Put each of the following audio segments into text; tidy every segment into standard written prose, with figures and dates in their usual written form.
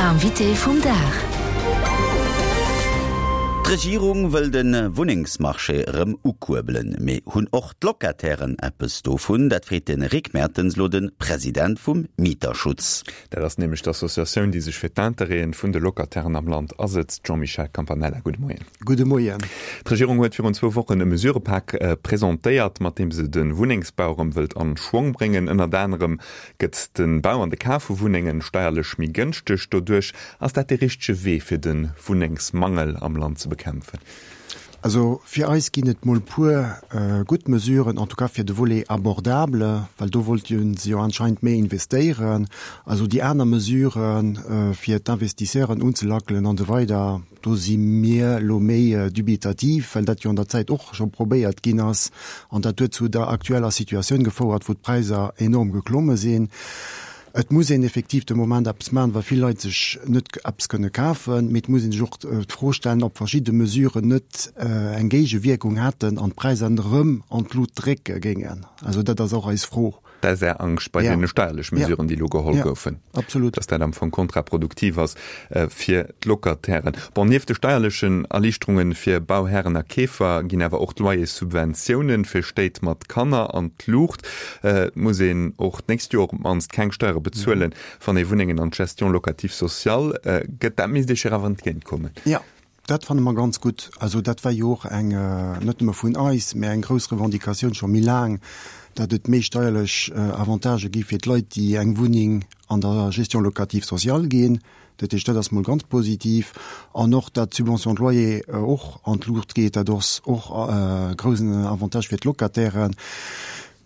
Invité vum Dag. D'Regierung wëll de Wunnengsmarché erëm ukuerbelen. Mee hunn och d'Locatairen eppes dovun? Dat freet de Rick Mertens elo de President vum Mieterschutz. Dat ass nämlech d'Associatioun, déi sech fir d'Interêten vun de Locatairen am Land asëtzt. Jean-Michel Campanella, gudde Moien. Gudde Moien. D'Regierung huet virun zwou Wochen e Mesurëpak presentéiert, mat deem se de Wunnengsbau erëm wëllt an Schwong bréngen. Ënnert anerem Gëtt de Bau an de Kaf vu Wunnengen steierlech méi gënschteg doduerch? Ass dat dee richtege Wee fir de Wunnengsmangel am Land ze bekämpfen? Also fir eis ginn et mol puer gutt Mesuren, en tout cas fir de Volet abordable, well do wollte se jo anscheinend méi investéieren. Also déi aner Mesuren, fir d'Investisseuren unzelackelen an esou weider, Do si mir elo méi dubitativ, well dat jo an der Zäit och scho probéiert ginn ass an dat huet zu der aktueller Situatioun gefouert, wou d'Präisser enorm geklomme sinn. Et muss een effektiv de Moment eppes maachen, well vill Leit sech net eppes kënne kafen. Mee et muss ee sech och d'Fro stellen, ob verschidde Mesuren net eng Géigewierkung hätten an d'Präisser erëm an d'Lut drécke géingen. Also dat ass och eis Fro. Dat ass Är Angscht bei deene steierlech Mesuren, déi elo geholl goufen, absolut, dass dat am Fong kontraproduktiv ass fir d'Locatairen. Bon, nieft de steierlechen Erliichterunge fir Bauhären a Keefer ginn awer och d'Loyerssubventiounen fir Stéit mat Kanner an d'Luucht. Et muss een och d'nächst Joer op d'mannst keng Steiere bezuelen, wann ee Wunnengen an d'Gestion locative sociale gëtt. Dat misst Iech jo awer entgéintkommen. Jo, Dat fanne mer ganz gutt. Also dat war jo och eng, net nëmme vun eis, mä eng grouss Revendicatioun scho méi laang, datt et méi steierlech Avantagë gi fir d'Leit, déi eng Wunneng an der Gestion locative sociale ginn. Dat heescht, dat ass mol ganz positiv. An och, datt d'Subvention de loyer och an d'Luucht geet, dat ass och e groussen Avantage fir d'Locatairen.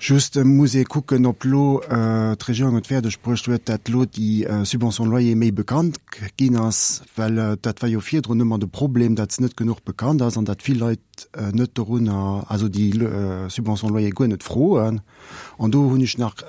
Just muss ee kucken, ob elo d'Regierung et fäerdeg bruecht huet, dat elo déi Subvention loyer méi bekannt ginn ass, well dat war jo virdrun ëmmer de Problem, dat se net genuch bekannt ass an dat vill Leit net dorunner, also déi Subvention loyer guer net froen. An do hunn ech nach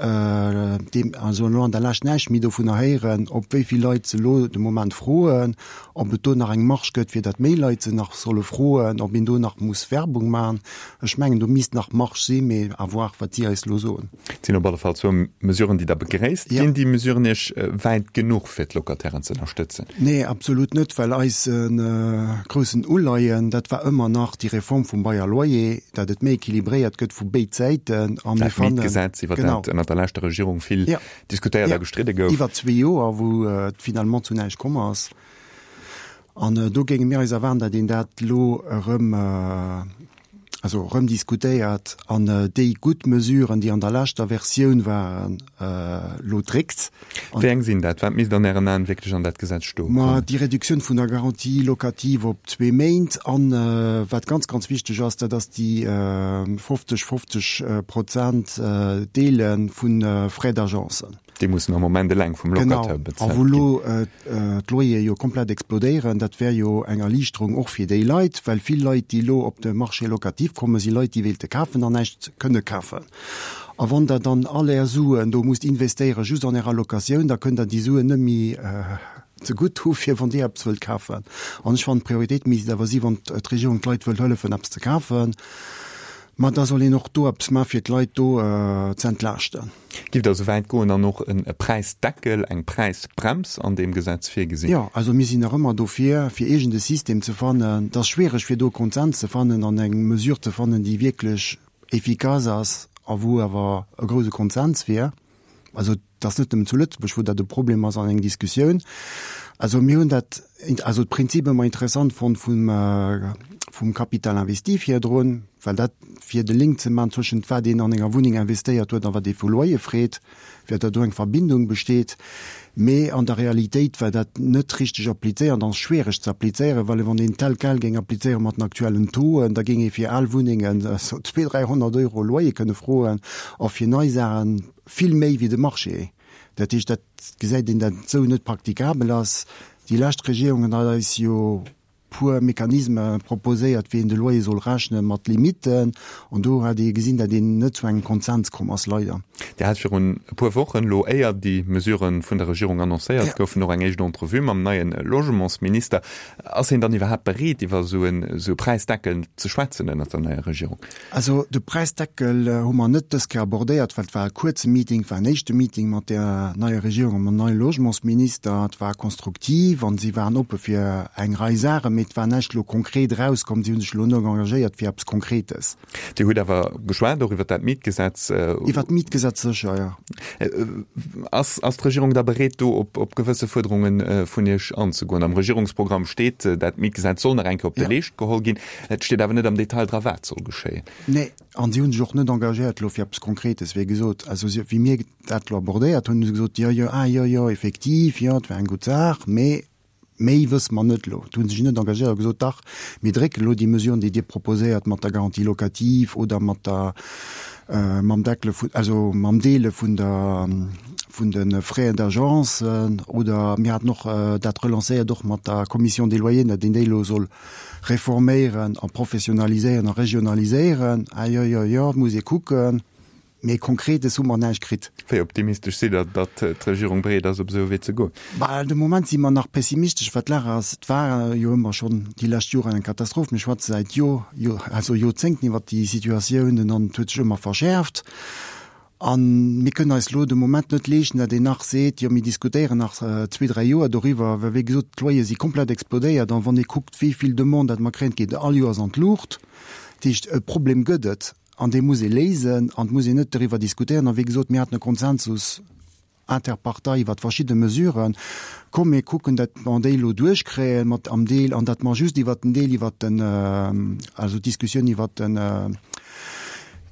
deem, also elo an der Lescht näischt méi dovunner héieren, ob wéi vill Leit se elo de Moment froen, ob et do nach eng Marge gëtt, fir dat méi Leit se nach solle froen, ob een do nach muss Werbung maachen. Ech mengen, do misst nach Marge sinn, mee à voir, wat si eis elo soen. Et sinn op alle Fall zwou Mesuren, déi Der begréisst. Ginn déi Mesuren Iech wäit genuch, fir d'Locatairen ze ënnerstëtzen? Nee, absolut net, well eise groussen Uleien, dat war ëmmer nach déi Reform vum Bail à loyer, dat et méi équilibréiert gëtt vu béid Säiten. A mir fannen. Dat Mietgesetz, iwwer dat ënnert der leschter Regierung vill diskutéiert a gestridde gouf. Iwwer zwee Joer, wou et finalement zu näischt komm ass. An do géinge mir eis erwaarden, datt een dat elo erëm, also erëm diskutéiert an déi gutt Mesuren, déi an der leschter Versioun waren, elo dréckt. Wéi eng sinn dat? Wat misst an Ären Aen wierklech an dat Gesetz stoe kommen? Ma déi Reduktioun vun der Garantie locative op zwee Méint an, wat ganz, ganz wichteg ass, dat ass déi 50, 50 Prozent Deele vu Frais d'agence. Déi mussen am Moment eleng vum Locataire bezuelt ginn. Genau, a wou elo d'Loyere jo komplett explodéieren, dat wär jo eng Erliichterung och fir déi Leit, well vill Leit, déi elo op de Marché locatif kommen, si Leit, déi wéilte kafen an näischt kënne kafen. A wann Der dann all Är Suen do musst investéieren, just an Ärer Locatioun, da kënnt Der déi Suen net méi zegutt hu fir wann Dir eppes wëllt kafen. An ech fannen, d'Prioritéit misst awer si wann d'Regierung d'Leit wëllt hëllefen eppes ze kafen, ma da soll een och do eppes maachen, fir d'Leit do ze entlaaschten. Giff Der esou wäit goen an och e Präisdeckel, eng Präisbrems an deem Gesetz virgesinn? Jo, also mir sinn nach ëmmer dofir, fir iergend e System ze fannen. Et ass schwiereg, fir do e Konsens ze fannen an eng Mesure ze fannen, déi wierklech efficace ass a wou awer e grouse Konsens wier. Also et ass net nëmmen zu Lëtzebuerg, wou dat e Problem ass an eng Diskussioun. Also mir hunn dat, also d'Prinzip ëmmer interessant fonnt vum, vum Capital investi virdrun, well dat fir de Link ze maachen zwëschent wat een an enger Wunneng investéiert huet a wat ee vu Loyer freet, fir datt do eng Verbindung besteet. Mee an der Realitéit war dat net richteg applizéiert an ass schwiereg ze applizéieren, well wann een tel quel géing applizéiere mat den aktuellen Tauxen, da géing ee fir al Wunnengen esou 200, 300 Euro Loyer kënne froen a fir nei Saache vill méi wéi de Marché. Dat heescht, dat gesäit een, dat et esou net praktikabel ass. Déi lescht Regierung huet eis jo. puer Mechanisme proposéiert, wéi een de Loyer soll rechnen, mat Limitten. An do hat ee gesinn, datt een net zu engem Konsens komm ass, leider. Dir hat virun e puer Wochen, elo éier déi Mesurë vun der Regierung annoncéiert goufen, och eng éischt Entrevue mam neie Logementsminister. Ass hien dann iwwerhaapt bereet, iwwer esou e Präisdeckel ze schwätzen ënnert der neier Regierung? Also de Präisdeckel hu mer net dës Kéier abordéiert, well et war e kuerze Meeting, et war en éischte Meeting mat der neier Regierung a mam neie Logementsminister. Et war konstruktiv an si waren oppe fir eng Rei Saachen, mee et war näischt elo konkret erauskomm. Si hu sech elo net engagéiert fir eppes Konkretes. Dir hutt awer geschwat och iwwer dat Mietgesetz. Iwwer d'Mietgesetz sécher, jo. Ass d'Regierung da bereet, do op gewësse Fuerderunge vun Iech anzegoen? Am Regierungsprogramm steet, dat Mietgesetz soll nach eng Kéier op de Leescht geholl ginn. Et steet awer net am Detail dra wat soll geschéien. Nee, an si hu sech och net engagéiert elo fir eppes Konkretes. Wéi gesot, also si, wéi mir dat elo abordéiert hunn, hu se gesot, jo, jo, ah jo, jo, effektiv, jo, et war eng gutt Saach, mee méi wësse mer net elo. Do hu se sech net engagéiert a gesot, dach, mir drécken elo déi Mesuren, déi Dir proposéiert mat der Garantie locative oder mat der, mam Deckele vun, also mam Deele vun der, vun de Frais d'agence oder mir haten och dat relancéiert och mat der Commission des loyers, datt een déi elo soll Reforméieren a professionaliséieren a regionaliséieren, ah jo, jo, jo, et muss ee kucken, mee Konkretes hu mer näischt kritt. Wéi optimistesch sidd Der, datt d'Regierung bereet ass, op esou e Wee ze goen? Bah, de Moment si mer nach pessimistesch, wat d'Lag ass. Et war jo ëmmer schonn déi lescht Joren eng Katastroph. Mir schwätze säit Jo, Jo, also Joerzéngten iwwert déi Situatiounen an et huet sech ëmmer verschäerft. A mir kënnen eis elo de Moment net leeschten, datt een nach seet, jo mir diskutéieren nach zwee, dräi Joer doriwwer, well wéi gesot, d'Loyere si komplett explodéiert. An wann ee kuckt, wéi vill Demande dat mer kréien, et geet all Joers an d'Luucht. Dat heescht, e Problem gëtt et an dee muss ee léisen an et muss een net doriwwer diskutéieren. A wéi gesot, mir haten e Konsensus Interpartei iwwert verschidde Mesuren. Komm mir kucken, datt mer déi elo duerchkréien mat am Deel an datt mer just iwwert den Deel iwwert den, also d'Diskussioun iwwert den,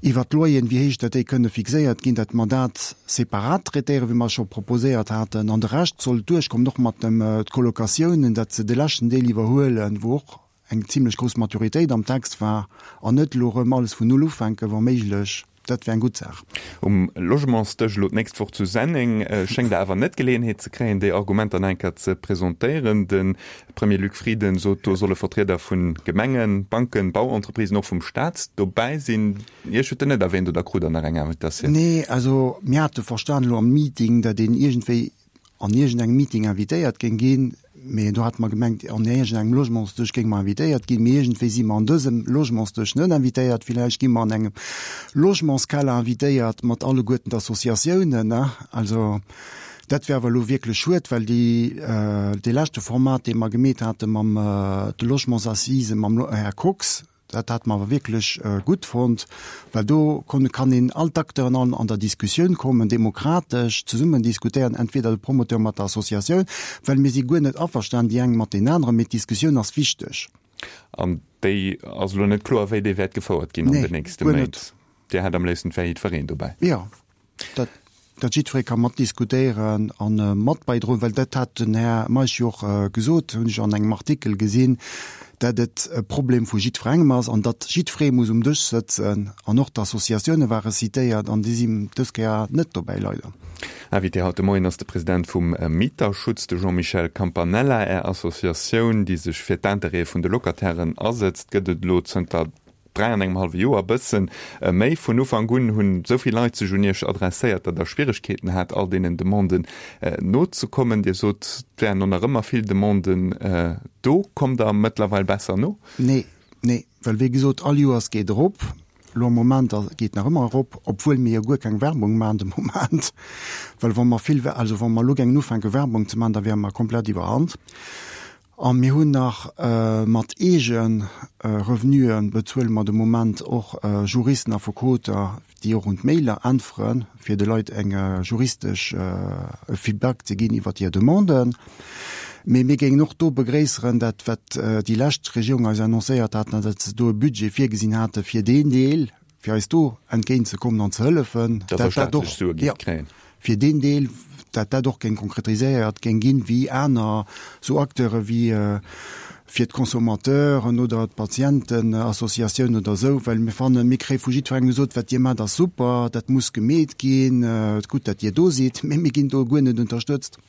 iwwert d'Loyeren, wéi héich datt déi kënne fixéiert ginn, datt mer dat separat traitéieren, wéi mer scho proposéiert haten, an de Rescht soll duerchkommen, och mat dem d'Colocatiounen, datt se de leschten Deel iwwerhuelen, wou och eng zimlech grouss Maturitéit am Text war, an net elo erëm alles vun Null ufänken, wa méiglech. Dat wär eng gutt Saach. Um Logementsdësch elo d'nächst Woch zu Senneng schéngt Der awer net d'Geleeënheet ze kréien, déi Argumenter nach eng Kéier ze presentéieren. De Premier Luc Frieden sot, do solle Vertrieder vu Gemengen, Banken, Bauentreprisen, och vum Staat dobäi sinn. Iech huet en net erwähnt, oder krut Der nach eng Invitatioun? Nee, also mir hate verstan elo am Meeting, datt een iergendwéi an iergendengem Meeting invitéiert géing ginn, mee do hate mer gemengt, an iergendengem Logementsdësch géinge mer invitéiert ginn, mee iergendwéi si mer an dësem Logementsdësch net invitéiert. Villäicht gi mer an engem Logementskeller invitéiert mat alleguerten d'Associatiounen. Also dat wär awer elo wierklech schued, well déi, dee leschte Format, dee mer gemeet hate mam de Logementsassisen, mam Här Kox, Dat hate mer awer wierklech gutt fonnt, well do kon kann een all d'Acteuren an an der Diskussioun kommen, demokratesch zesummen diskutéieren, entweder de Promoteur mat der Associatioun, well mir si guer net averstan, déi eng mat deenen aneren, mee d'Diskussioun ass wichteg. An déi ass elo net kloer, wéi déi wäert gefouert ginn an den nächste Méint. Dir hätt am léifsten, et wär jiddwereen dobäi. Jo. Dat, dat jiddweree ka mat diskutéieren a mat bäidroen, well dat hat den Här Meisch jo och gesot, hunn ech an engem Artikel gesinn, dat et e Problem vu jiddwerengem ass an datt jiddweree muss um Dësch sëtzen. An och d'Associatioune ware citéiert an déi sinn dës Kéier net dobäi, leider. Invité haut de Moien ass de President vum Mieterschutz, de Jean-Michel Campanella. Är Associatioun, déi sech fir d'Intérêtë vun de Locatairen asëtzt, gëtt et elo zënter 3 an engem hallwe Joer, bëssen méi. Vun Ufank un hunn esou vill Leit sech un Iech adresséiert, datt Der Schwieregkeeten hat, all deenen Demanden nozekommen. Dir sot, et wären och nach ëmmer vill Demanden do. Kommt Der mëttlerweil besser no? Nee, nee, well wéi gesot, all Joers geet erop. Elo am Moment geet nach ëmmer erop, obwuel mir jo guer keng Werbung maachen de Moment. Well wa mer vill, also wa mer elo géingen ufänke Werbung ze maachen, da wäre mer komplett iwwerhand. A mir hunn nach mat eege Revenuen bezuele mer de Moment och Juristen, Affekoter, déi och un d'Mailer äntweren, fir de Leit eng juristesch e Feedback ze ginn iwwert hir Demanden. Mee mir géingen och do begréisseren, dat wat déi lescht Regierung eis annoncéiert hat, datt se do e Budget virgesinn hate fir deen Deel, fir eis do entgéint ze kommen an ze hëllefen, dat dat och, jo, fir deen Deel, dat dat och géing konkretiséiert géing ginn, wéi aner esou Acteure wéi fir d'Consommateuren oder d'Patientenassociatioun oder esou, well mir fannen, mir kréie vu jiddwerengem gesot, wat Dir maacht ass super, dat muss gemeet ginn, gutt dat Dir do sidd, mee mir ginn do guer net unterstëtzt.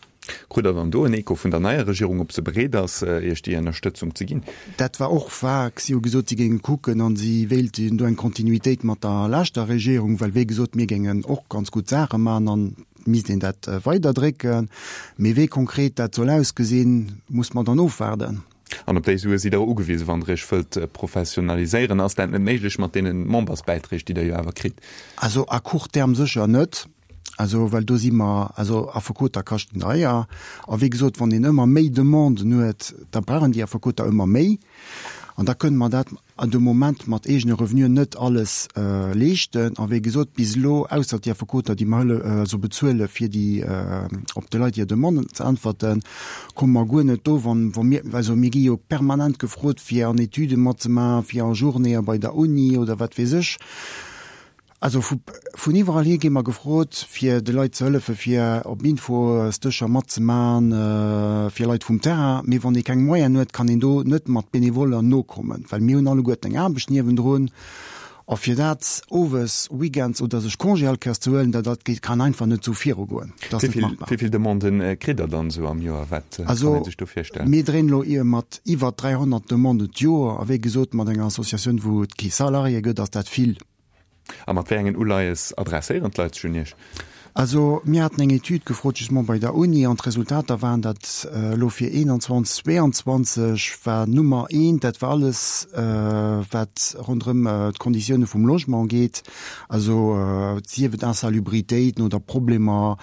Krut Der dann do en Echo vun der neier Regierung, ob se bereet ass, Iech déi Ënnerstëtzung ze ginn? Dat war och vag. Si hu gesot, si géinge kucken a si wéilten do eng Kontinuitéit mat der leschter Regierung, well wéi gesot, mir géingen och ganz gutt Saache maachen an et misst een dat weiderdrécken. Mee wéi konkret dat soll ausgesinn, muss mer dann ofwaarden. An op déi Sue sidd Der ugewisen, wann Der Iech wëllt professionaliséieren. Ass dat net méiglech mat deene Membersbäiträg, déi Der jo awer kritt? Also à court terme sécher net. Also, well do si mer, also Affekoter kaschten deier. A wéi gesot, wann een ëmmer méi Demanden huet, da brauchen déi Affekoter ëmmer méi. An da kënne mer dat de Moment mat eegene Revenuen net alles leeschten. A wéi gesot, bis elo, ausser déi Affekoter, déi mer hëlle, also bezuele fir déi, op de Leit hir Demanden ze äntwerten, komme mer guer net do, wann, wa mir, also mir gi jo permanent gefrot, fir an Etüde matzemaachen, fir a Journéeë bei der Uni oder wat weess ech. Also vu vun iwwerall hier gi mer gefrot, fir de Leit ze hëllefe fir op Infosdëscher matzemaen, fir Leit vum Terrain. Mee wann ee keng Moyenen huet, kann een do net mat Benevoller nokommen, well mir hunn alleguerten eng Aarbecht niewendrun. A fir dat owes, weekends oder sech Congé all Kéiers ze huelen, dat dat kann einfach net esou virugoen. Dat ass net machbar. Wéi vill Demanden kritt Der dann esou am Joer? Wat kann ee sech do virstellen? Also mir dréinen elo mat iwwer 300 Demanden d'Joer. A wéi gesot, mat enger Associatioun, wou et kee Salarié gëtt, ass dat vill. A mat wéi engen Uleies adresséieren d'Leit sech un Iech? Also mir haten eng Etüd gefrot justement bei der Uni an d'Resultater waren, datt elo fir 21, 22 war Nummer eent, dat war alles wat ronderëm d'Konditioune vum Logement geet, also sief et Insalubritéiten oder Problemer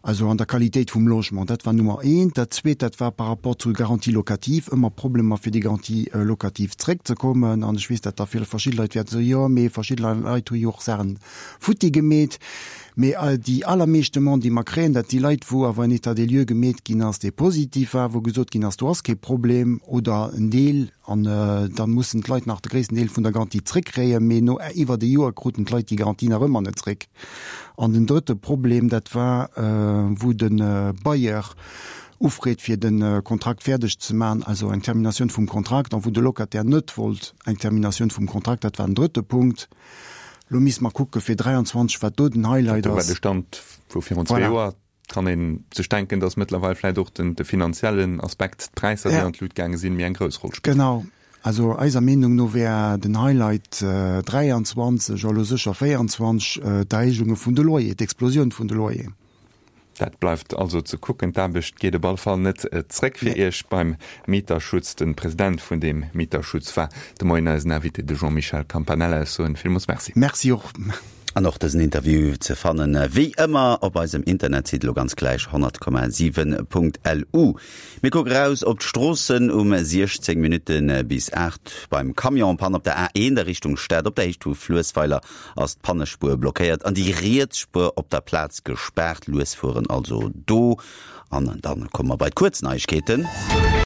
Also an der Qualitéit vum Logement, dat war Nummer eent. Dat Zweet, dat war par rapport zur Garantie locative, ëmmer Problemer fir déi Garantie locative zréckzekommen. An ech weess, datt da vill verschidde Leit wäerten soen, jo, mee verschidde Leit hu jo och Saachen futti gemeet. Mee déi allermeescht Demanden, déi mer kréien, dat si Leit, wou awer en État des lieux gemeet ginn ass, dee positiv war, wou gesot ginn ass, do ass kee Problem oder en Deel. An da mussen d'Leit nach de gréissten Deel vun der Garantie zréckkréien. Mee no iwwert e Joer kruten d'Leit déi Garantie nach ëmmer net zréck. An den drëtte Problem, dat war, wou de Bailleur ufreet, fir de Kontrakt fäerdeg ze maachen, also eng Terminatioun vum Kontrakt, an wou de Locataire net wollt eng Terminatioun vum Kontrakt. Dat war den drëtte Punkt. Elo misste mer kucke fir 23, wat do den Highlight ass. Dat war de Stand vu virun zwee Joer. Kann ee sech denken, datt mëttlerweil vläit och de finanziellen Aspekt, d'Präisser, déi an d'Lut gaange sinn, méi eng grouss Roll spillt. Genau. Also eiser Meenung no wär den Highlight 23, a lo sécher 24, d'Erhéijunge vun de Loyer, d'Explosioun vun de Loyer. Dat bleift also ze kucken. D'Aarbecht geet op alle Fall net zréck fir Iech beim Mieterschutz. De President vun deem Mieterschutz war de Moien eisen Invité, de Jean-Michel Campanella. Ech soen villmools Merci. Merci och. An och dësen Interview ze fannen wéi ëmmer op eisem Internetsite elo ganz gläich 100,7.lu. Mir kucke raus op d'Stroossen um 16 Minutte bis 8 beim Camion Panne op der A1 a Richtung Stad. Op der Héicht vu Fluessweiler ass d'Pannespuer blockéiert an déi riets Spuer op der Plaz gespaart. Lues fueren also do. An dann komme mer bei d'Kuerzneiegkeeten.